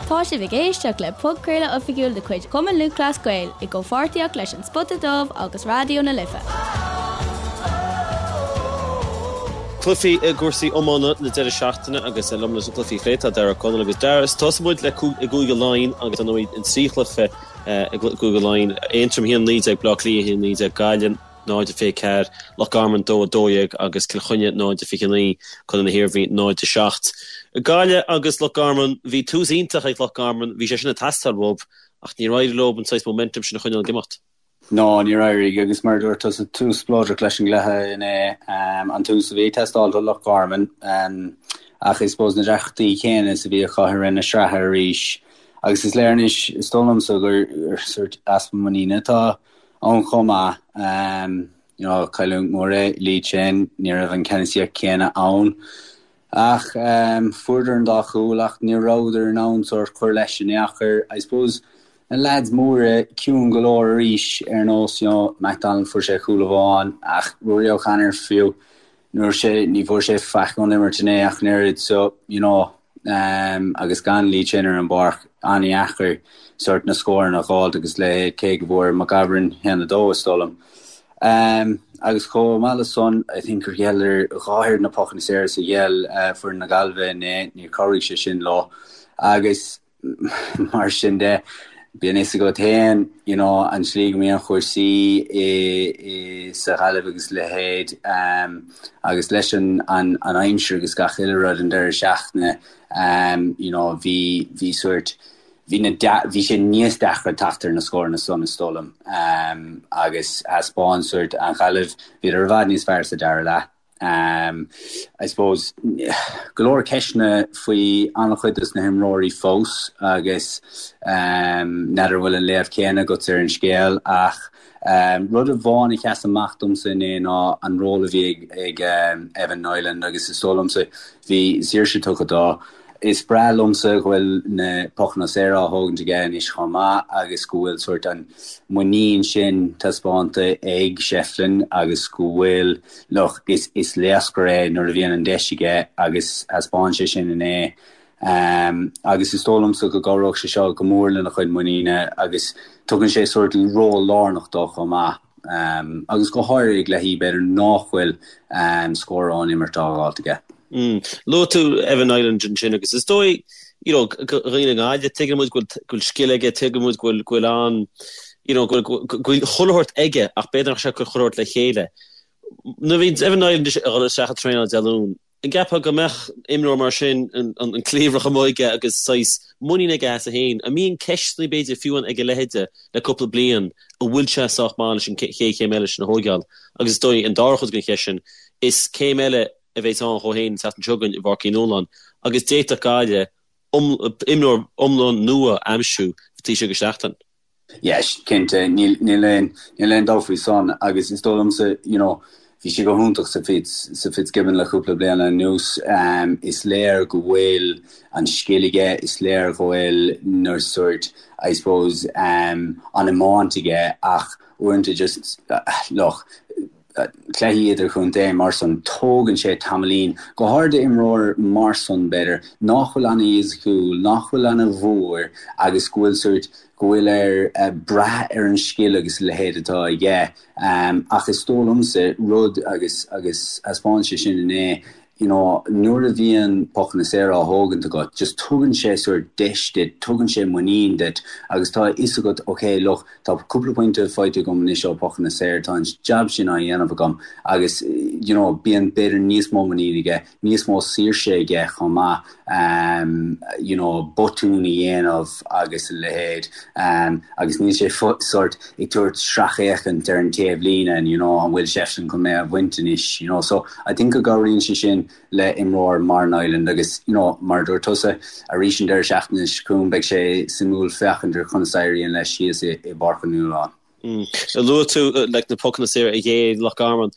Tá sibh ag éisteacht le podchraoladh oifigiúil de chuid Chumann Lúthchleas Gael i gcomhpháirtíocht leis An Spota Dubh agus Raidió na Life. Cluichí i gcúrsaí iomána na deireadh seachtaine agus liom leis na cluichí a phlé tá Darragh Ó Conaill agus Darragh. Tosóidh muid le i gCúige Laighean agus ar ndóigh an 3 chluiche i gCúige Laighean, Aontroim 1-19, Baile Átha Cliath 1-19, Gaillimh 0-24, Loch Garman 2-12 agus Cill Chainnigh 0-29, Contae na hIarmhí 0-7. Gaillimh agus Loch Garman, bhí tús iontach ag Loch Garman, bhí sé sin ag teastáil uathu ach níor éirigh leo an saghas momentum sin a choinneáil ag imeacht. No, níor éirigh agus mar a dúirt tusa, tús spleodrach leis an gcluiche inné, an tús a bhí ag teastáil do Loch Garman ach I suppose na deacrachtaí céanna is a bhí acu i rith na sraithe arís agus is léir anois, is dóigh liomsa, gur sórt easpa muiníne atá ann chomh maith. You know, cailliúint mhór é Lee Chin, ní raibh an ceannasaíocht chéanna ann. Ach fuaireadar an dá chúl ach ní rabhadar in ann sórt cur leis in aon chor. I suppose na leaids móra ciúin go leor arís ar nós, you know, McDonald fuair sé cúl amháin ach Ruairí O'Connor fiú ní raibh sé, ní bhfuair sé faic ón imirt inné ach an oiread so, you know, agus gan Lee Chin ar an bpáirc, an-dheacair sórt na scóranna a dh'fháilt agus leithéid, cé go bhfuair McGovern 1-2 is dóigh liom. Agus chomh maith le san, I think gur ghéilleadar dhá oiread na pocanna saora is a ghéill foireann na Gaillimhe inné, níor chabhraigh sé sin leo. Agus Mar sin de, bíonn fhios agat féin, you know, an tslí go mbíonn cúrsaí i, i, sa Ghaillimh agus a leithéid, agus leis an, an, an aimsir agus gach uile rud an deireadh seachtaine, you know, bhí, bhí sórt, bhí na, bhí sé níos deacra teacht ar na scóranna san, is dóigh liom. Agus thaispeáin sórt an Ghaillimh, bhíodar i bhfad níos fearr sa dara leath. I suppose, go leor ceisteanna faoi an-chuid dos na himreoirí fós agus n'fheadar an bhfuil an léamh céanna agat ar an scéal ach rud amháin a sheas amach domsa inné ná an ról a bhí ag Evan Niland agus is dóigh liomsa bhí saoirse tugtha dó. Is breá liomsa go bhfuil na pocanna saora á thógaint aige anois chomh maith agus go bhfuil sórt an muinín sin taispeánta ag Shefflin agus go bhfuil, look, is is laochra é nuair a bhíonn an deis aige agus thaispeáin sé sin inné. Agus is dóigh liomsa go gcabhróidh sé seo go mór lena chuid muiníne agus tugann sé sórt ról lárnach dó chomh maith. Agus go háirithe i gcluichí b'fhéidir nach bhfuil scór ón imirt á dh'fháilt aige. Luaigh tú Evan Niland ansin agus is dóigh, you know, do dhaoine i nGaillimh, tuigeann muid go bhfuil scil aige, tuigeann muid go bhfuil, go bhfuil an, you know, go bhfuil, go bhfuil chuile shórt aige ach b'fhéidir nach bhfuil sé ag cur chuile shórt le chéile. Nuair a bhíonn Evan Niland ag dul isteach ag traenáil Dé Luain, An gceapfá go mbeadh imreoir mar sin, an cliabhrach amuigh aige agus saghas muinín aige as é féin? An mbíonn ceisteanna b'fhéidir fiú ann ag a leithéide le cúpla bliain, an bhfuil sé sách maith leis an chéad chéim eile sin a thóigeáil? Agus is dóigh an dara chuid den cheist sin, is céim eile a bheas ann dhó féin an tseachtain seo chugainn i bPáirc Uí Nualláin agus d'fhéadfadh Gaillimh imreoir iomlán nua a aimsiú taobh istigh de sheachtain. Yes, cinnte, níl, níl aon, níl aon dabht faoi san agus is dóigh liomsa, you know, bhí sé go hiontach sa Fitz, sa Fitzgibbon le cúpla bliain anuas. Is léir go bhfuil an scil aige, is léir go bhfuil na sórt, I suppose, an iomáint aige ach uaireanta just, look, cluichí idirchontae mar san, tógann sé tamaillín, go háirid d'imreoir mar san, b'fhéidir, nach bhfuil ana-fhisiciúil, nach bhfuil ana-mhór agus go bhfuil sórt, go bhfuil air brath ar an scil agus a leithéid atá aige. Ach is dóigh liomsa rud agus, agus thaispeáin sé sin inné, you know, nuair a bhíonn pocanna saora á thógaint agat, just tugann sé sórt deis duit, tugann sé muinín duit agus tá a fhios agat, ok, look, tá cúpla pointe faighte agam anois ó pocanna saora, tá an jab sin á dhéanamh agam agus, you know, bíonn b'fhéidir níos mó muinín aige, níos mó saoirse aige chomh maith, um, you know, botún a dhéanamh agus a leithéid, um, agus níl sé sórt ag tabhairt sracfhéachaint ar an taobh líne and, you know, an bhfuil Shefflin chun mé a bhaint anois, you know. So, I think go gcabhraíonn sé sin le imreoir mar Niland agus, you know, mar a dúirt tusa, arís an deireadh seachtaine seo chugainn beidh sé suimiúil féachaint ar conas a éiríonn leis thíos i bPáirc Uí Nualláin. Luaigh tú like na pocanna saora a ghéill Loch Garman.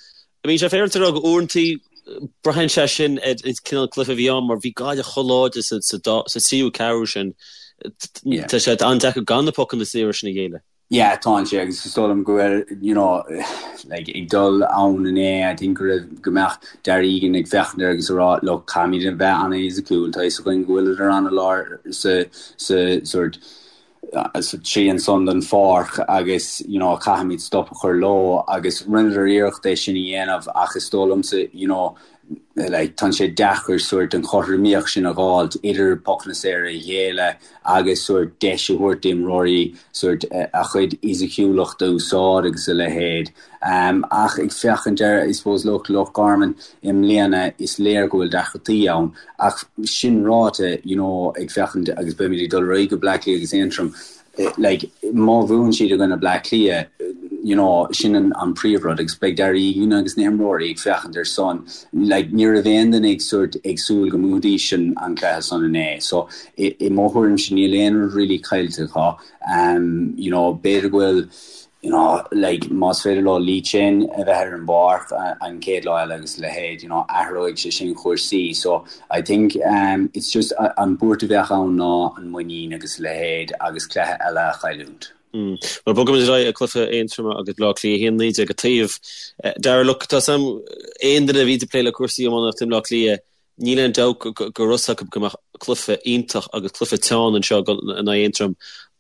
I mean, sé féidir a rá go uaireantaí braitheann sé sin ar an cineál cluiche a bhí ann mar bhí Gaillimh chomh láidir sa tríú ceathrú sin. Tá sé an-deacair gan na pocanna saora sin a ghéilleadh. Yeah, tá sé agus is dóigh liom go bhfuil, you know, like, ag dul ann inné, I think go raibh, go mbeadh Darragh Egan ag féachaint air agus ag rá, look, caithfimid a bheith an-fhisiciúil, tá a fhios againn go bhfuileadar an-láidir sa, sa sort, sa trian san den pháirc agus, you know, caithfimid stop a chur leo agus rinneadar iarracht é sin a dhéanamh ach is dóigh liomsa, you know, like, tá sé deacair sort an chothromaíocht sin a dh'fháilt idir pocanna saora a ghéilleadh agus sort deis a thabhairt d'imreoirí sort a chuid fhisiciúlacht a úsáid agus a leithéid. Um, ach ag féachaint ar, I suppose, look, Loch Garman i mbliana, is léir go bhfuil deacrachtaí ann. Ach sin ráite, you know, ag féachaint agus beimid ag dul ar aghaidh go Bleá Cliath agus Aontroim, like, má bhuann siad i gcoinne Bleá Cliath, you know, sin an, an príomhrud agus beidh Darragh Egan agus na himreoirí ag féachaint ar san. Like, ní raibh aon duine ag sort ag súil go mbuafaidís an, an cluiche san inné. So, i, i mo thuairimse níl aon rud really caillte acu. Um, you know, b'fhéidir go bhfuil, you know, like, más féidir leo Lee Chin a bheith ar an bpáirc an chéad lá eile agus a leithéid, you know, athróidh sé sin chúrsaí. So, I think um, it's just an buairt a bheadh ann ná an muinín agus a leithéid agus cluiche eile a chailliúint. Mm. Well, bogaimis ar aghaidh ag cluiche Aontroma agus Bleá Cliath 1-19 an taobh. Darragh, look, tá a fhios agam aon duine a bhí ag plé le cúrsaí iománaíochta i mBleá Cliath, Níl aon dabht go raibh fhios acu go mbeadh cluiche iontach agus cluiche teann anseo in aghaidh Aontroim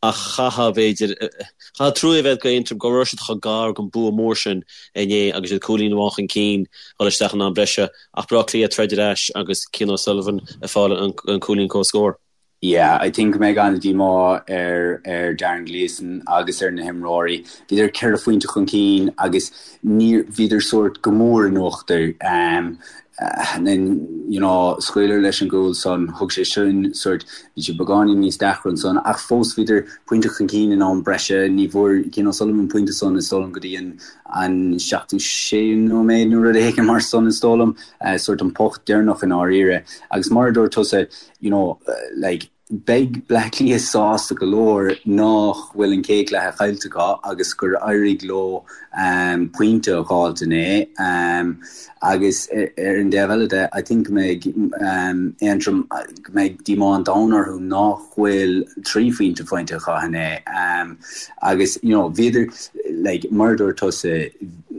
ach chaithfeá, b'fhéidir, chaithfeá trua a bheith do Aontroim go raibh siad chomh gar don bua mór sin inné agus iad cúilín amháin chun cinn dhul isteach in am breise ach Bleá Cliath ag troid ar ais agus Cian O'Sullivan ag fáil an cúilín comhscóir. Yeah, I think go mbeidh an-díomá ar ar Darren Gleeson agus ar na himreoirí. Bhíodar ceithre phointe chun cinn agus níor bhíodar sórt go mór in uachtar. Um, and then, you know, scaoileadar leis an gcúl san, thug sé sin sórt, bhí sé beagáinín níos deacra ansan, ach fós bhíodar pointe chun cinn in am breise, ní bhfuair Cian O'Sullivan an pointe san is dóigh liom go dtí an an 76ú nóiméad nó rud éigin mar san is dóigh liom, uh, sórt an poc deireanach i ndáiríre. Agus mar a dúirt tusa, you know, like, beidh Bleá Cliath sásta go leor nach bhfuil an chéad chluiche caillte acu agus gur éirigh leo um, pointe a dh'fháilt inné. Um, agus ar an dtaobh eile de, I think go mbeidh um, Aontroim, go mbeidh díomá an domhain orthu nach bhfuil 3 phointe faighte acu inné. Um, agus, you know, bhíodar, like, mar a dúirt tusa,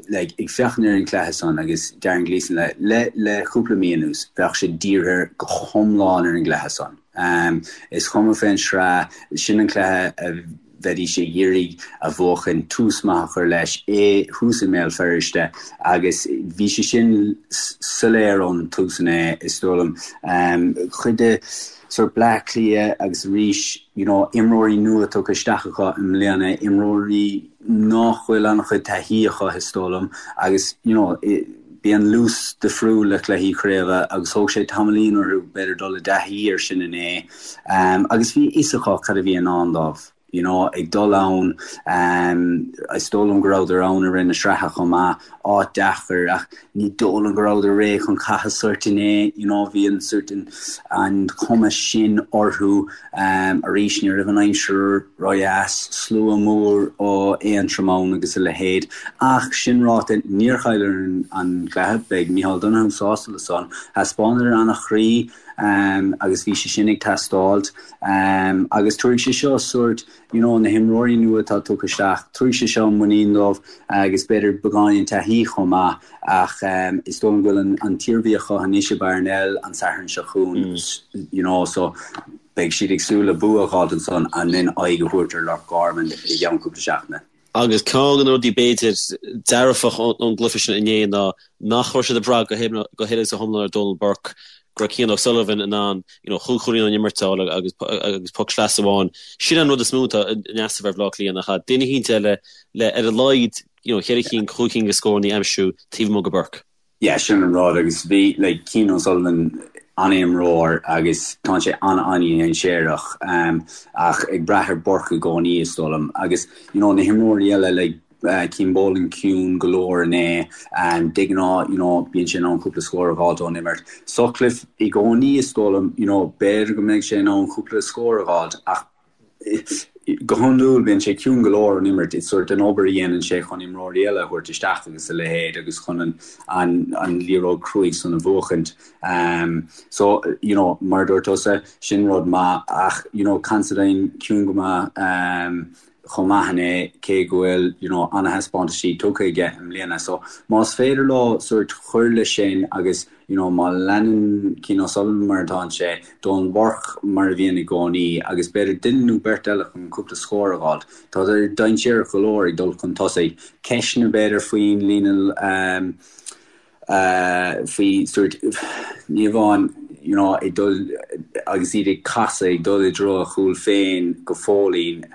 like, ag féachaint ar an chluiche san agus Darren Gleeson le, le, le cúpla mí anuas, bheadh sé dírithe go hiomlán ar an gcluiche san. Um, is cuma fén sraith, sin an cluiche a bheidís ag iarraidh a bhuachan, tús maith a chur leis, é thuas i mBéal Feirste agus bhí sé sin soiléir ón tús inné, is dóigh liom. Um, cuid de sort Bleá Cliath agus arís, you know, imreoirí nua tugtha isteach acu i mbliana, imreoirí nach bhfuil an-chuid taithí acu, is dóigh liom, agus, you know, bíonn luas difriúil le cluichí craoibhe agus thóg sé tamaillín orthu b'fhéidir dul i dtaithí air sin inné. Agus bhí a fhios acu cad a bhí i ndán dóibh, you know, ag dul ann, is dóigh liom go rabhadar ann i rith na sraithe chomh maith, áit deacair ach ní dóigh liom go rabhadar réidh chun catha sórt inné, you know, bhí an sórt an, an chuma sin orthu. Arís, ní raibh an aimsir ródheas, slua mór ó Aontroim ann agus a leithéid. Ach sin ráite, níor chailleadar an cluiche, beidh Micheál Donoghue sásta le san. Thaispeánadar an-chroí agus bhí sé sin ag teastáilt. Agus tabharfaidh sé seo sórt, you know, na himreoirí nua atá tugtha isteach, tabharfaidh sé seo muinín dóibh agus b'fhéidir beagáinín taithí chomh maith. Ach is dóigh liom go bhfuil an tIarmhí acu anois i Parnell an Satharn seo chugainn, you know, so beidh siad ag súil le bua a dh'fháilt ansan and then aghaidh a thabhairt ar Loch Garman i gceann cúpla seachtaine. Agus ceann de na rudaí b'fhéidir dearfach ón gcluiche sin inné ná nach raibh siad ag brath go huile agus go hiomlán ar Donal Burke, go raibh Cian O'Sullivan in ann you know chúig chúilín ón imirt a fháil agus agus poc sleasa amháin. Sin an rud is mó atá in easnamh ar Bhaile Átha Cliath nach ea? Duine eicínt eile le ar a laghad you know, cheithre cinn, chúig cinn de scóranna a aimsiú taobh amuigh de Burke. Yeah, sin an rud agus bhí, like, Cian O'Sullivan an-imreoir agus tá sé an-an-dhainséarach um, ach ag brath ar Burke i gcónaí is dóigh liom agus, you know, na himreoirí eile, like, uh, Cian Boland ciúin go leor inné, um, de ghnáth, you know, bíonn sé in ann cúpla scór a dh'fháilt ón imirt. Sutcliffe i gcónaí is dóigh liom, you know, b'fhéidir go mbeidh sé in ann cúpla scór a dh'fháilt ach Go hiondúil bíonn sé ciúin go leor ón imirt, is sórt an obair a dhéanann sé chun imreoirí eile a thabhairt isteach agus a leithéid agus chun an an liathróid cruaidh san a bhuachaint. So, you know, mar a dúirt tusa, sin rud maith ach, you know, Considine ciúin go maith. chomh maith inné cé go bhfuil you know ana-thaispeántaisí tugtha aige i mbliana. So más féidir leo sórt cur leis sin agus you know má leanann Cian O'Sullivan mar atánn sé, Donal Burke mar a bhíonn i gcónaí agus b'fhéidir duine nó beirt eile chun cúpla scór a dh'fháilt. Tá siad dainséarach go leor ag dul chun tosaigh. Ceisteanna b'fhéidir faoin líne um, faoi sórt ní amháin you know ag dul agus iad ag casadh ag dul i dtreo a chúl féin go fóillín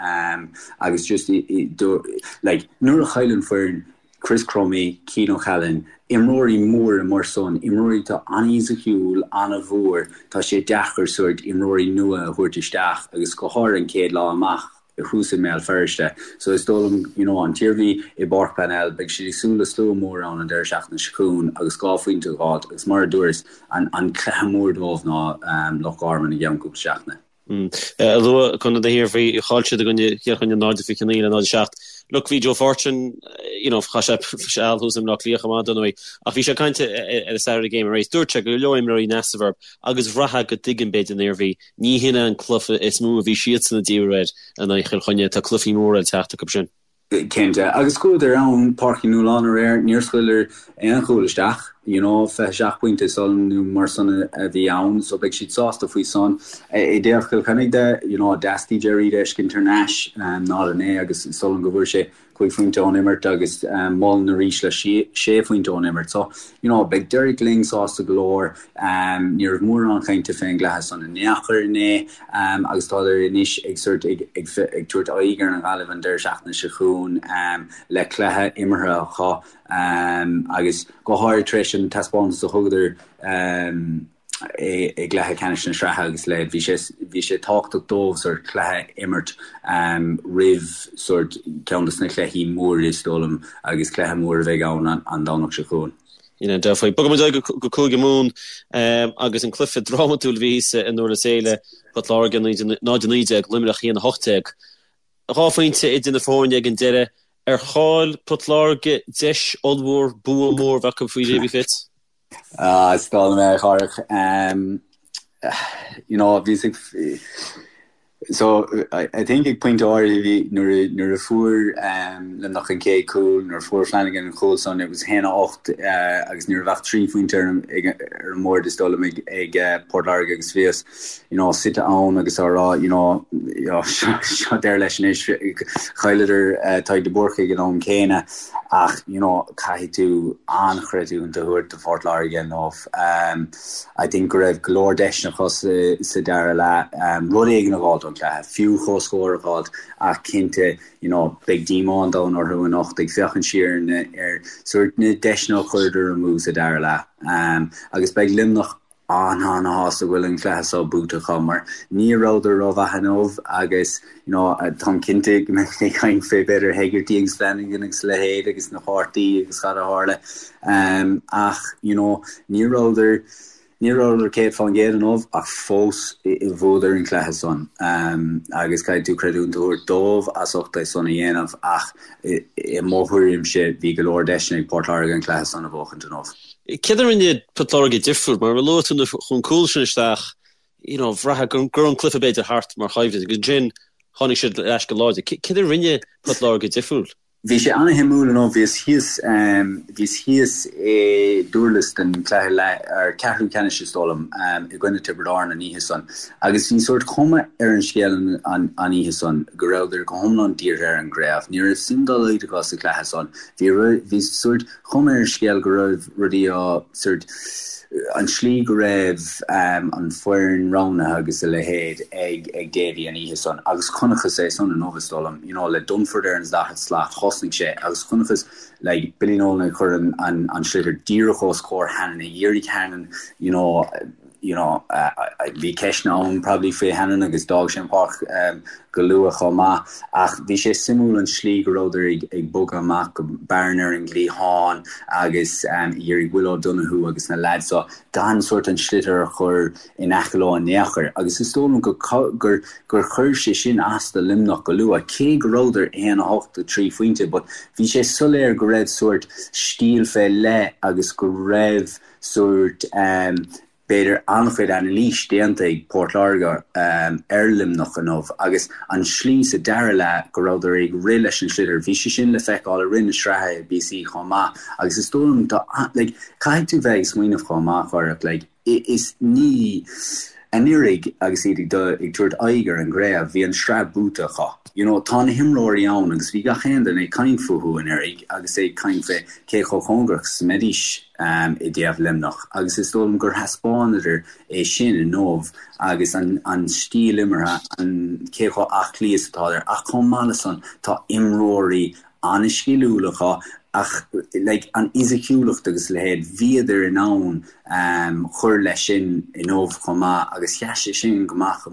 agus just like nuair a chailleann foireann Chris Crummey, Cian O'Callaghan, imreoirí móra mar san, imreoirí atá an-fhisiciúil, an-mhór, tá sé deacair sórt imreoirí nua a thabhairt isteach agus go háirithe an chéad lá amach. thuas i mBéal Feirste. So is dóigh liom, you know, an tIarmhí i bPáirc Parnell, beidh siad ag súil le slua mór ann an deireadh seachtaine seo chugainn agus 2 phointe a dh'fháilt agus mar a dúras, an, an cluiche mór dóibh ná Loch Garman i gceann cúpla seachtaine. Luaigh Contae na hIarmhí, chaill siad i gcoinne Chill Chainnigh 0-29 le 0-7. Look, bhí Joe Fortune, you know, chaith sé seal thuas i mBleá Cliath chomh maith, dar ndóigh, ach bhí sé ag caint ar an Saturday Game arís. Dúirt sé go leor imreoirí in easnamh orthu agus bhraithfeá go dtuigeann b'fhéidir an Iarmhí Ní hin é an cluiche is mó a bhí siadsan ag díriú air in aghaidh Chill Chainnigh. Tá cluichí móra le teacht acu sin. Cinnte. Agus chuadar ann, Páirc Uí Nualláin aréir, níor scaoileadar aon chúl isteach, you know, 27 pointe is dóigh liom nó mar san a bhí ann, so beidh siad sásta faoi san. I dtaobh Chill Chainnigh de, you know, theastaigh Gerry a fheiscint thar n-ais, 0-9 agus is dóigh liom go bhfuair sé 5 phointe ón imirt agus Mullen arís le 6 phointe ón imirt. So, you know, beidh Derek Lyng sásta go leor. Ní raibh mórán cainte fén gcluiche san in aon chor inné agus tádar anois ag sort ag ag tabhairt aghaidh ar an Ghaillimh an deireadh seachtaine seo chugainn le cluiche imeartha acu agus go háirid tar éis an taispeántas a thugadar i gcluiche ceannais na sraithe agus le bhí sé bhí sé tábhachtach dóibh sort cluiche a imirt roimh sort ceann de na cluichí móra is dóigh liom agus cluiche mór a bheidh ann an Domhnach seo chugainn. You know, dearfa. Bogfaidh muid go Cúige Mumhan agus an cluiche drámatúil a bhí thíos i nDurlas Éile, Port Láirge 0-19, Luimneach 1-18. 2 phointe idir na foirne ag an deireadh. Ar chaill Port Láirge deis ollmhór, bua mór a bheith acu faoi Davy Fitz? Ah, is dóigh liom é, a Chárthach. You know, bhíos ag, so, I think ag pointe áirithe bhí, nuair a, nuair a fuair Luimneach an chéad chúl, nuair a fuair Flanagan an chúl san, it was 1-8 agus ní raibh ach 3 phointe ar an, ag, ar an mbord is dóigh liom ag, ag Port Láirge agus bhíos, you know, suite ann agus á rá, you know, you know, seo deireadh leis anois, chailleadar Tadhg de Búrca ag an am céanna ach, you know, caithfidh tú an-chreidiúint a thabhairt do Phort Láirge inniu. I think go raibh go leor deiseanna acu sa, sa dara leath, rud éigin a dh'fháilt ón gcluiche, fiú comhscór a dh'fháilt ach cinnte, you know, beidh díomá an domhain orthu anocht ag féachaint siar ar, ar sórt na deiseanna a chuireadar amú sa dara leath. Agus beidh Luimneach an-an-shásta go bhfuil an cluiche seo buaite acu mar ní rabhadar rómhaith inniu agus you know táim cinnte go mbeidh ag caint fé b'fhéidir Hegarty agus Flanagan agus a leithéid agus na cártaí agus cad a tharla ach you know ní rabhadar ní rabhadar 100% inniu ach fós bhuadar an cluiche san agus caithfidh tú creidiúint a thabhairt dóibh as ucht é san a dhéanamh ach i mo thuairimse bhí go leor deiseanna ag Port Láirge an cluiche san a bhuachaint inniu. Céard a rinne Port Láirge difriúil? Mar a luaigh tú nuair a chuaigh an cúl sin isteach, you know, bhraithfeá go raibh an cluiche b'fhéidir thart mar choimhlint agus ansin tháinig siad ar ais go láidir. Céard a rinne Port Láirge difriúil? Bhí sé an-shuimiúil inniu. Bhíos thíos, bhíos thíos i nDurlas don chluiche leath, ar ceathrú ceannais is dóigh liom, i gcoinne Tiobraid Árann an oíche san agus bhí sórt cuma ar an scéal an oíche san go rabhadar go hiomlán dírithe ar an gcraobh. Ní raibh suim dá laghad acu sa chluiche san. Bhí, bhí sórt chuma ar an scéal go raibh rudaí á, sórt, an tslí go raibh an foireann roghnaithe agus a leithéid ag ag Davy an oíche san agus chonacthas é san inniu is dóigh liom, you know, le Dunford ar an daichead slat, thosnaigh sé agus chonacthas like Billy Nolan ag cur an an an sliotar díreach os comhair Hannon ag iarraidh Hannon, you know, you know, bhí ceisteanna ann probably faoi Hannon agus d'fhág sé an pháirc go luath chomh maith ach bhí sé suimiúil an slí go rabhadar ag ag bogadh amach go Barron ar an gcliathán agus ag iarraidh Will O'Donoghue agus na lads so gan sórt an sliotar a chur in aice leo in aon chor agus is dóigh liom go gur gur chuir sé sin as do Luimneach go luath cé go rabhadar 1-8 3 phointe but bhí sé soiléir go raibh sórt stíl fé leith agus go raibh sórt. B'fhéidir an-chuid anailís déanta ag Port Láirge ar Luimneach inniu agus an slí sa dara leath go rabhadar ag rith leis an sliotar, bhí sé sin le feiceáil i rith na sraithe i bpíosaí chomh maith agus is dóigh liom tá like caithfidh tú bheith ag smaoineamh chomh maith Phádraic like is ní anuraidh agus iad ag dul ag tabhairt aghaidh ar an gcraobh bhí an sraith buaite acu. You know tá na himreoirí ann agus bhí gach aon duine ag caint fúthu anuraidh agus ag caint fé cé chomh cóngarach is a mbeidís. i dtaobh Luimneach agus is dóigh liom gur thaispeánadar é sin inniu agus an an stíl imeartha, an cé chomh aclaí is atádar ach chomh maith le san tá imreoirí an-sciliúil acu ach like an fhisiciúlacht agus a leithéid, bhíodar in ann cur leis sin inniu chomh maith agus sheas sé sin go maith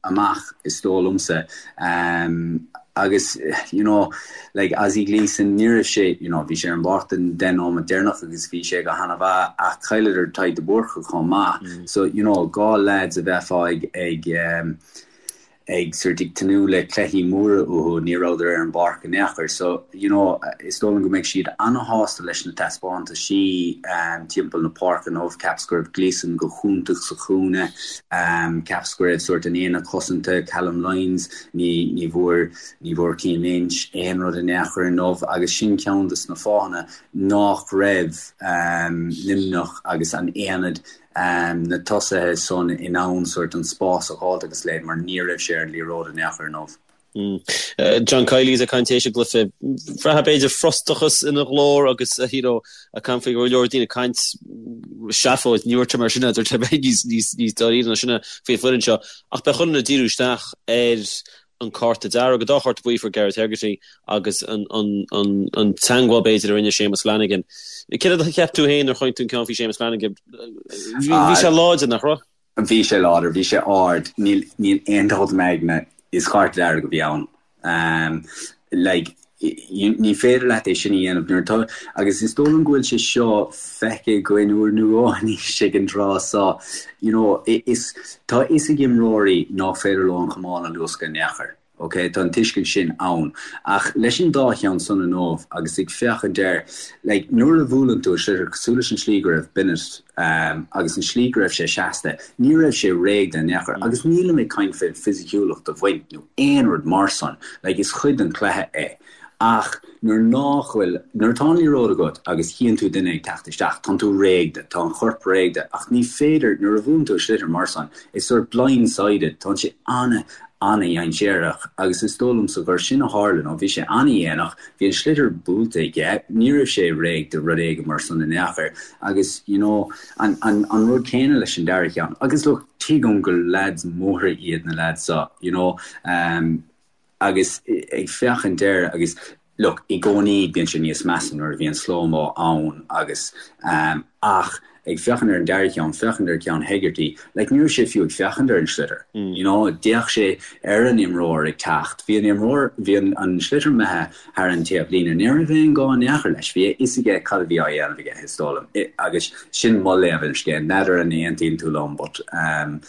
amach is dóigh liomsa agus you know like Ozzie Gleeson ní raibh sé you know bhí sé ar an bpáirc don 10 nóiméad deireanach agus bhí sé go hana-mhaith ach chailleadar Tadhg de Búrca chomh maith so you know 2 lads a bheifeá ag ag ag sort ag tnúth le cluichí móra uathu ní rabhadar ar an bpáirc in aon chor so you know is dóigh liom go mbeidh siad ana-shásta leis na taispeántaisí timpeall na páirce inniu cheapas go raibh Gleeson go hiontach sa chúinne Cheapas go raibh sórt an aonad cosanta, Callum Lyons, ní ní bhfuair ní bhfuair Cian Lynch aon rud in aon chor inniu agus sin ceann de na fáthanna nach raibh Luimneach agus an aonad na tosaithe san in ann sórt an spás a dh'fháilt agus a leithéid mar ní raibh sé ar an liathróid in aon chor inniu. John Kiely is ag caint théis an gcluiche. Bhraithfeá b'fhéidir frustrachas ina ghlór agus you know ag caint faoi go leor daoine ag caint seafóid, ní dúirt sé mar sin é, dúirt sé bheith níos níos níos dáiríre ná sin faoi foireann seo. Ach beidh chuile dhuine ag díriú isteach ar an cárta dearg, an dá chárta buí a fuair Gareth Hegarty agus an an an an teangmháil b'fhéidir a rinne Séamus Flanagan. Céard a cheap tú féin nuair a chonaic tú an ceann faoi Séamus Flanagan? Bhí sé láidir, nach raibh? Bhí sé láidir, bhí sé ard, níl, níl aon dabht i m'aigne, is cárta dearg a bhí ann. Like, ní féidir leat é sin a dhéanamh nuair atá, agus is dóigh liom go bhfuil sé seo feicthe againn uair nó dhó anois ag an tráth seo, you know, is, tá a fhios ag imreoirí nach féidir leo an camán a luascadh in aon chor. Ok, tá an tuiscint sin ann. Ach leis an dá cheann san inniu agus ag féachaint air, like, nuair a bhuaileann tú sliotar cosúil leis an slí go raibh Bennett agus an slí go raibh sé seasta, ní raibh sé réidh in aon chor. Agus nílim ag caint fén fisiciúlacht a bhaint nó aon rud mar san, like, is cuid den chluiche é. Ach nuair nách bhfuil, nuair atá an liathróid agat agus chíonn tú duine ag teacht isteach, tánn tú réidh de, tá an chorp réidh de, ach ní féidir, nuair a bhuaileann tú sliotar mar san, it's sort blind-sided, tánn sé ana, ana-dhainséarach agus is dóigh liomsa gur sin a tharla, nó bhí sé ana-dhéanach, bhí an sliotar buailte aige, ní raibh sé réidh do rud éigin mar san in aon chor agus you know, an, an, an rud céanna leis an dara ceann. Agus look, tuigim gur lads móra iad na lads seo, you know, um, Agus ag féachaint air agus look, i gcónaí bíonn sé níos measa nuair a bhíonn slow-mo ann agus ehm ach ag féachaint ar an dara ceann, féachaint ar ceann Hegarty, like ní raibh sé fiú ag féachaint ar an sliotar, you know, d'fhéach sé ar an imreoir ag teacht, bhí an imreoir, bhí an an sliotar imithe thar an taobh líne, ní raibh aon gá in aon chor leis, bhí a fhios aige cad a bhí á dhéanamh aige, is dóigh liom, agus sin mo léamh ar an scéal, n'fheadar an aontaíonn tú liom but ehm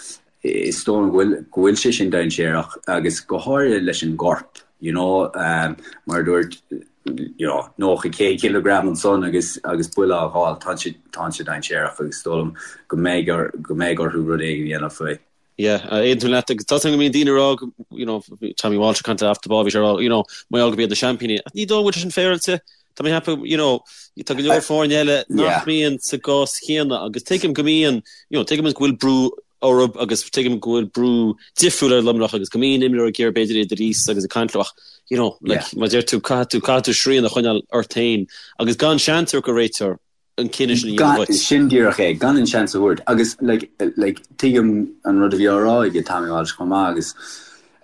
Is dóigh liom go bhfuil, go bhfuil sé sin dainséarach agus go háirithe leis an gcorp, you know, mar a dúirt, you know, 90, 100 cileagram ansan agus, agus buille á fháil, tá sé, tá sé dainséarach agus is dóigh liom go mbeidh or, go mbeidh orthu rud éigin a dhéanamh faoi. Yeah, aontaím leat agus tá a fhios agam go mbíonn daoine ag rá go, you know, Tommy Walsh ag caint off the ball, bhí sé ag rá, you know, mar gheall gurb iad na seaimpíní. Ach ní dóigh go bhfuil sé sin féaráilte. Tá mé ag ceapadh, you know, tá go leor foirne eile nach mbíonn sa gcás chéanna agus tuigim go mbíonn, you know, tuigim go bhfuil brú orthu agus tuigim go bhfuil brú difriúil ar Luimneach agus go mbíonn imreoirí ag iarraidh b'fhéidir iad a ríos agus ag caint leo ach, you know, like, mar a deir tú, caithfidh tú, caithfidh tú srian a choinneáil ort féin agus gan seans a thabhairt don réiteoir an cinneadh sin a dhéanamh duit. Sin díreach é, gan an seans a thabhairt agus, like, like, tuigim an rud a bhí á rá ag Tommy Walsh chomh maith agus,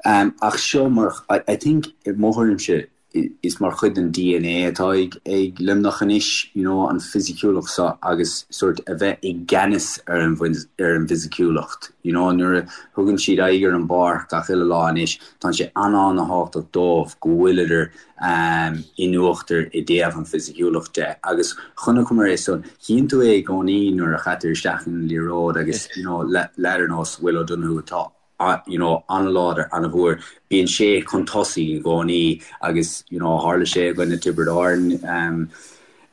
um, ach seo mar, I, I think, i mo thuairimse, is mar chuid den DNA atá ag Luimneach anois, you know, an fisiciúlacht seo agus sórt a bheith i gceannas ar an ar an bhfisiciúlacht, you know, nuair a thugann siad aghaidh ar an bpáirc gach uile lá anois, tá sé an-an-thábhachtach dóibh go bhfuileadar um, in uachtar i dtaobh an fisiciúlacht de agus chonaiceamar é san, chíonn tú é i gcónaí nuair a chaitear isteach an liathróid agus, you know, leaid ar nós Will O'Donoghue atá you know, an-láidir, an-mhór. Bíonn sé chun tosaigh i gcónaí agus, you know, tharla sé i gcoinne Tiobraid Árann um,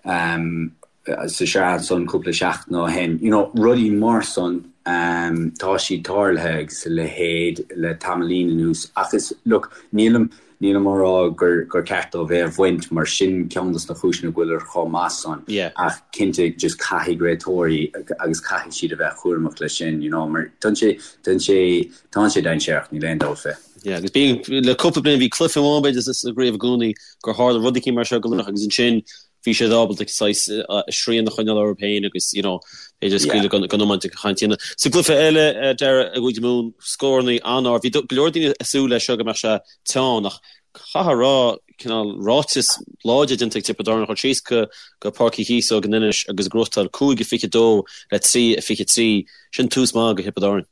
um, sa sraith ansan cúpla seachtain ó shin. You know, rudaí mar san, tá siad tarlaithe agus a leithéid le tamaillín anuas ach is, look, nílim, nílim á rá gur, gur ceart dóibh é a bhaint mar sin ceann dos na cúiseanna go bhfuileadar chomh maith san ach cinnte just caithfidh réiteoirí agus caithfidh siad a bheith cúramach leis sin, you know, mar tá sé, tá sé, tá sé dainséarach, níl aon dabht fé. Yeah, agus bíonn, le cúpla bliain bhí cluiche amháin b'fhéidir sa gcraobh i gcónaí gur tharla rud eicínt mar seo go Luimneach agus ansin bhí siad ábalta saghas srian a choinneáil orthu féin agus you know b'fhéidir scaoileadh den iomáint ag caint dhéanamh. Sa gcluiche eile, Dara, i gCúige Mumhan, scórannaí an-ard. Bhí go leor daoine ag súil leis seo go mbeadh sé teann ach caithfidh a rá cineál ráiteas láidir déanta ag Tiobraid Árann a dhul síos go go Páirc Uí Chíosóg in Inis agus gnóthachtáil 5-22 le 3-23. Sin tús maith do Thiobraid Árann.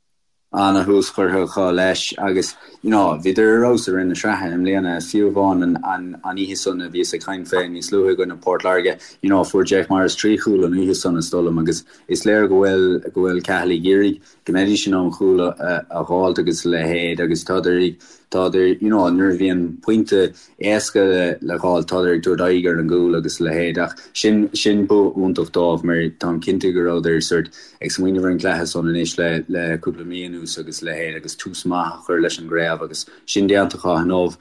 Ana-thús curtha acu leis agus you know bhíodar ar fheabhas i rith na sraithe i mbliana, fiú amháin an an an oíche san a bhíos ag caint fé níos luaithe i gcoinne Port Láirge, you know fuair Jake Morris 3 chúl an oíche san is dóigh liom agus is léir go bhfuil go bhfuil Cathal ag iarraidh go mbeidís in ann cúl a a dh'fháilt agus a leithéid agus tádar ag tádar you know nuair a bhíonn pointe éasca le dh'fháil, tádar ag tabhairt aghaidh ar an gcúl agus a leithéid ach sin, sin bua iontach dóibh mar táim cinnte go rabhadar sort ag smaoineamh ar an gcluiche san anois le, le cúpla mí anuas agus a leithéid agus tús maith a chur leis an gcraobh agus sin déanta acu inniu.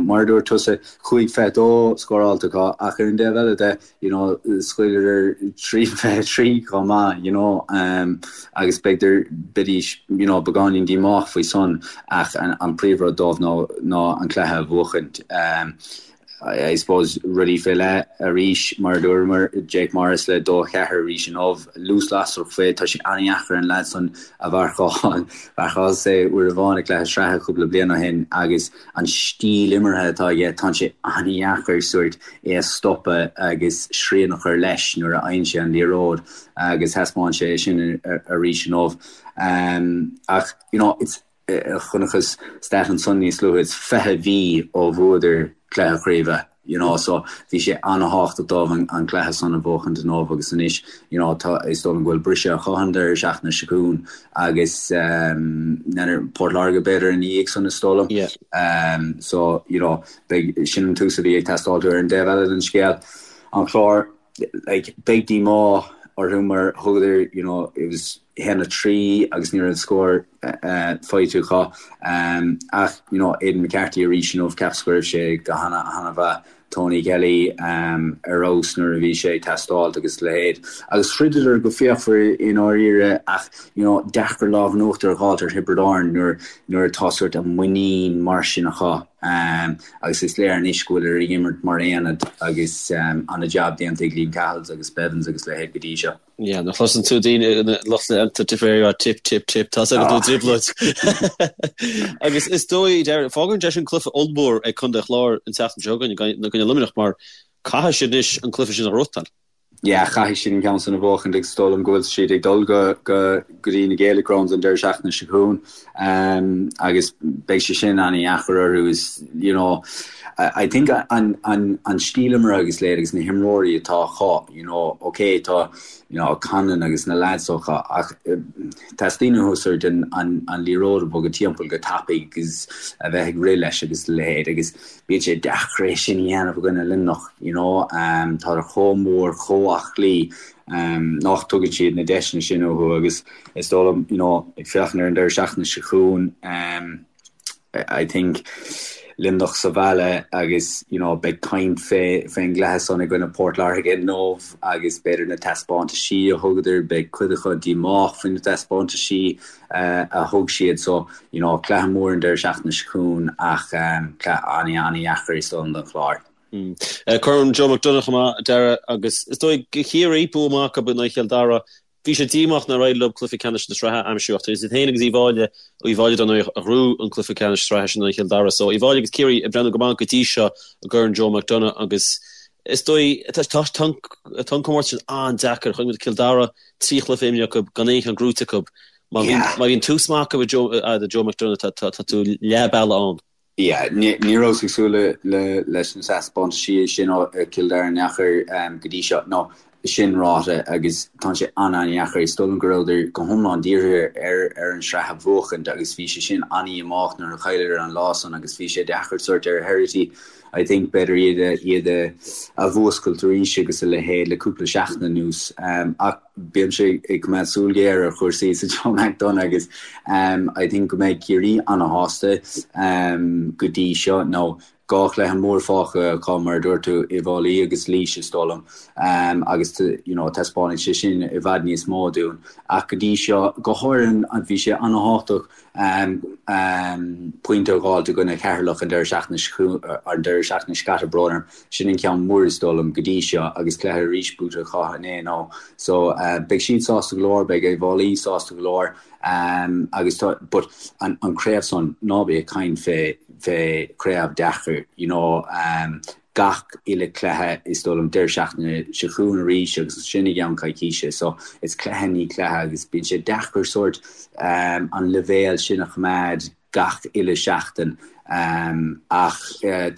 Mar a dúirt tusa, 5-22 scóráilte acu ach ar an dtaobh eile de, you know, scaoileadar 3-23 chomh maith, you know, um, agus b'fhéidir, beidís, you know, beagáinín díomách faoi san ach an, an príomhrud dóibh ná, ná an cluiche a bhuachaint. Um, I, I suppose rudaí fé leith arís mar a dúramar, Jake Morris le 2-4 arís inniu, luas lasrach fé, tá sé an-dheacair an leaid san a mharcáil, mharcálas é uair amháin i gcluiche sraithe cúpla bliain ó shin agus an stíl imeartha atá aige, tá sé an-dheacair sórt é a stopadh agus srian a chur leis nuair a fhaigheann sé an liathróid agus thaispeáin sé é sin arís inniu. Ach, you know, it's, chonacthas stat ansan níos luaithe, it's 20 mhí ó bhuadar cluiche craoibhe, you know, so bhí sé an-thábhachtach dóibh an cluiche san a bhuachaint inniu agus anois, you know, tá, is dóigh liom go bhfuil briseadh acu an deireadh seachtaine seo chugainn agus um, Port Láirge b'fhéidir ina dhiaidh san is dóigh liom. Yeah. Um, so, you know, Beidh, sin an tús a bhí ag teastáil ar an dtaobh eile den scéal, an Clár, like, beidh díomá orthu mar thugadar, you know, it was 1-3 agus ní raibh scór faighte acu. Ach, you know, Aidan McCarthy arís inniu, cheapas go raibh sé go hana-mhaith. Tony Kelly ar fheabhas nuair a bhí sé ag teastáilt agus a leithéid. Agus throideadar go fíochmhar i ndáiríre ach, you know, deacair lámh in uachtar a dh'fháilt ar Thiobraid Árann nuair nuair atá sórt an muinín mar sin acu. Agus is léir anois go bhfuileadar ag imirt mar aonad agus ana-jab déanta ag Liam Cahill agus Bevins agus a leithéid go dtí seo. Yeah, nuair a chloiseann tú daoine, lucht leanta Tipperary ag rá tip, tip, tip, tá's agat go bhfuil trioblóid. Agus is dóigh, fágann sé sin cluiche ollmhór ag Contae an Chláir an tseachtain seo chugainn i gcoinne Luimneach mar caithfidh siad anois an cluiche sin a ghnóthachtáil. Yeah, caithfidh siad an ceann san a bhuachaint agus is dóigh liom go bhfuil siad ag dul go go go dtí na Gaelic Grounds an deireadh seachtaine seo chugainn agus beidh sé sin an-dheacair orthu is you know I think an an an stíl imeartha agus leithéid agus na himreoirí atá acu you know ok tá you know Conlon agus na lads acu ach teastaíonn uathu sort an an an liathróid a bhogadh timpeall go tapaidh agus a bheith ag rith leis agus a leithéid agus Bíonn sé deacair é sin a dhéanamh i gcoinne Luimneach, you know. Tádar chomh mór, chomh aclaí, nach dtugann siad na deiseanna sin uathu agus is dóigh liom, you know, ag féachaint ar an deireadh seachtaine seo chugainn, I think Luimneach sa bhaile agus, you know, beidh caint fé, fén gcluiche san i gcoinne Port Láirge inniu agus b'fhéidir na taispeántaisí a thugadar, beidh cuid acu díomách faoi na taispeántaisí a thug siad. So, You know, cluiche mór an deireadh seachtaine seo chugainn ach cluiche an-an-dheacair is dóigh liom don Chlár. Corn Joe McDonagh chomh maith, a Dhara, agus is dóigh do Chiarraí, bua maith acu in aghaidh Chill Dara. Bhí sé díomách nár éirigh leo cluiche ceannais na sraithe a aimsiú ach tá siad féin agus Uíbh Fhailí, Uíbh Fhailí dar ndóigh a ghnóthaigh an cluiche ceannais sraithe sin in aghaidh Chill Dara. So Uíbh Fhailí agus Ciarraí ag breathnú go maith go dtí seo i gCorn Joe McDonagh agus is dóigh tá an comórtas sin an-deacair. Chonaic muid Cill Dara, 3 chluiche imeartha acu gan aon cheann gnóthaithe acu. Má bhíonn tús maith acu do Joe McDonagh tá tú leath bealaigh ann. Yeah, ní rabhas ag súil leis na taispeántaisí sin ó Chill Dara in aon chor go dtí seo. No. Sin ráite, agus tá sé an-an-dheacair, is dóigh liom go rabhadar go hiomlán dírithe ar ar an sraith a bhuachaint agus bhí sé sin an-dhíomách nuair a chailleadar an lá san agus bhí sé deacair sórt ar Herity I think b'fhéidir iad a iad a a mhúscailt arís agus a leithéid le cúpla seachtain anuas. Ach bímse ag coimeád súil ghéar ar chúrsaí sa Joe McDonagh agus I think go mbeidh Ciarraí an-shásta go dtí seo nó 2 chluiche mór fágtha acu, mar a dúirt tú, Uíbh Fhailí agus Laois, is dóigh liom, agus you know taispeánfaidh sé sin i bhfad níos mó dúinn. Ach go dtí seo, go háirithe, bhí sé an-thábhachtach pointe a dh'fháilt i gcoinne Cheatharlach an deireadh seachtaine an deireadh seachtaine seo caite, brón orm. Sin an ceann mór is dóigh liom go dtí seo agus cluiche arís buaite acu inné nó so beidh siad sásta go leor, beidh Uíbh Fhailí sásta go leor. Agus tá, but an craobh san, ná bí ag caint fé, fé chraobh deacair, you know, gach uile cluiche is dóigh liom deireadh seachtaine seo chugainn arís agus ansin i gceann coicíse, so it's cluiche i ndiaidh cluiche agus bíonn sé deacair sórt an leibhéal sin a choimeád gach uile seachtain. Ach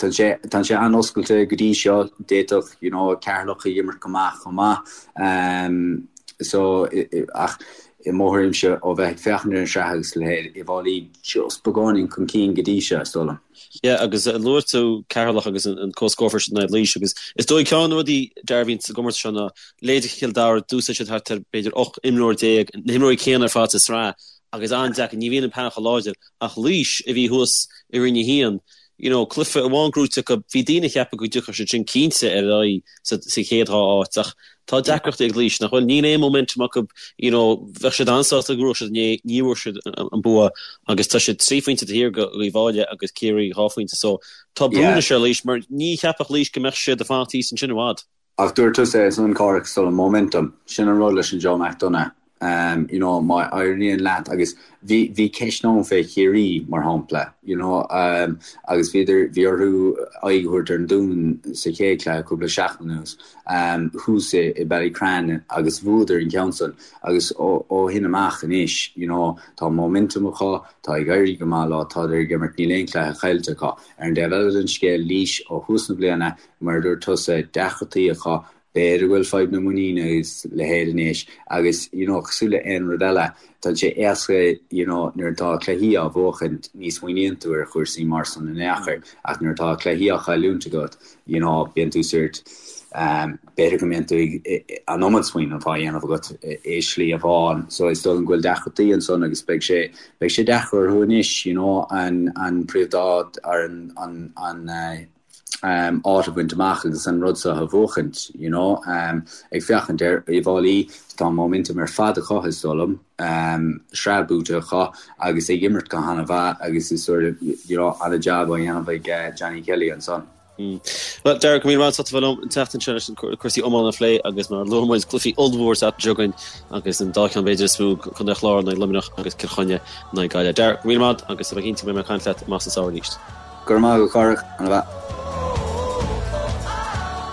tá sé, tá sé an-oscailte go dtí seo, d'fhéadfadh, you know, Ceatharlach ag imirt go maith chomh maith. So, ach i mo thuairimse, ó bheith ag féachaint ar an sraith agus a leithéid, Uíbh Fhailí just beagáinín chun cinn go dtí seo, is dóigh liom. Yeah, agus luaigh tú Ceatharlach agus an comhscór sin in aghaidh Laois agus is dóigh ceann de na rudaí a bhíonn sa gcomórtas seo ná leithéidí Chill Dara, d'úsáid siad thart ar b'fhéidir 18 imreoir, na himreoirí céanna ar fad sa sraith agus an-deacair, ní bhíonn an painéal chomh láidir ach Laois a bhí thuas i Roinn 1, you know, cluiche amháin gnóite acu, bhí daoine ag ceapadh go dtiocfadh siad sin cinnte ar aghaidh sa chéad dhá áit ach tá deacrachtaí ag Laois nach bhfuil, níl aon momentum acu, you know, bheadh siad an-sásta go mbuafadh siad inné, ní bhfuair siad an bua agus tá siad trí phointe taobh thiar d'Uíbh Fhailí agus Ciarraí dhá phointe so tá brú anois ar Laois mar ní cheapfadh Laois go mbeadh siad ag fanacht thíos ansin i bhfad. Ach dúirt tusa é san, Cárthach, is dóigh liom, momentum, sin an rud leis an Joe McDonagh. You know, má éiríonn leat, agus bhí, bhí ceist ann fé Chiarraí, mar shampla, you know, agus bhíodar, bhí orthu aghaidh a thabhairt ar an Dún sa chéad chluiche cúpla seachtain anuas, thuas i, i Ballycran agus bhuadar an ceann san agus ó, ó shin amach anois, you know, tá momentum acu, tá ag éirí go maith leo, tádar ag imirt, níl aon chluiche caillte acu. Ar an dtaobh eile den scéal, Laois, ó thús na bliana, Mar a dúirt tusa, deacrachtaí acu, b'fhéidir go bhfuil fadhb na muiníne agus a leithéid anois agus you know cosúil le aon rud eile, tá sé éasca you know nuair atá cluichí á bhuachaint ní smaoiníonn tú ar chúrsaí mar san in aon chor ach nuair atá cluichí á chailliúint agat you know bíonn tú sórt um b'fhéidir go mbíonn tú ag an iomad smaoineamh á dhéanamh agat i slí amháin so is dóigh liom go bhfuil deacrachtaí ansan agus beidh sé beidh sé deacair orthu anois you know an an príomh-áit ar an an an eh áit a bhaint amach agus an rud seo a bhuachaint, you know. Ag féachaint ar Uíbh Fhailí, tá momentum ar fad acu, is dóigh liom, sraith buaite acu agus ag imirt go han-mhaith agus is sort of, you know, an-jab á dhéanamh ag Johnny Kelly ansan. Bhuel, Darragh, go raibh míle maith agat as ucht a bheith liom an tseachtain seo leis an cúrsaí iomána a phlé agus mar a luaigh muid cluichí ollmhór an tseachtain seo chugainn agus an dá cheann b'fhéidir is mó, Contae an Chláir in aghaidh Luimneach agus Cill Chainnigh in aghaidh Gaillimh. Darragh, go raibh míle maith agat agus tá mé cinnte go mbeidh mé ag caint leat amach sa samhradh arís. Go raibh maith agat, a Chárthaigh. Ana mhaith.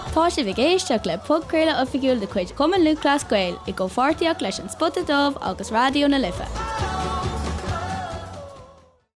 Tá sibh ag éisteacht le podchraoladh oifigiúil de chuid Chumann Lúthchleas Gael i gcomhpháirtíocht leis An Spota Dubh agus Raidió na Life.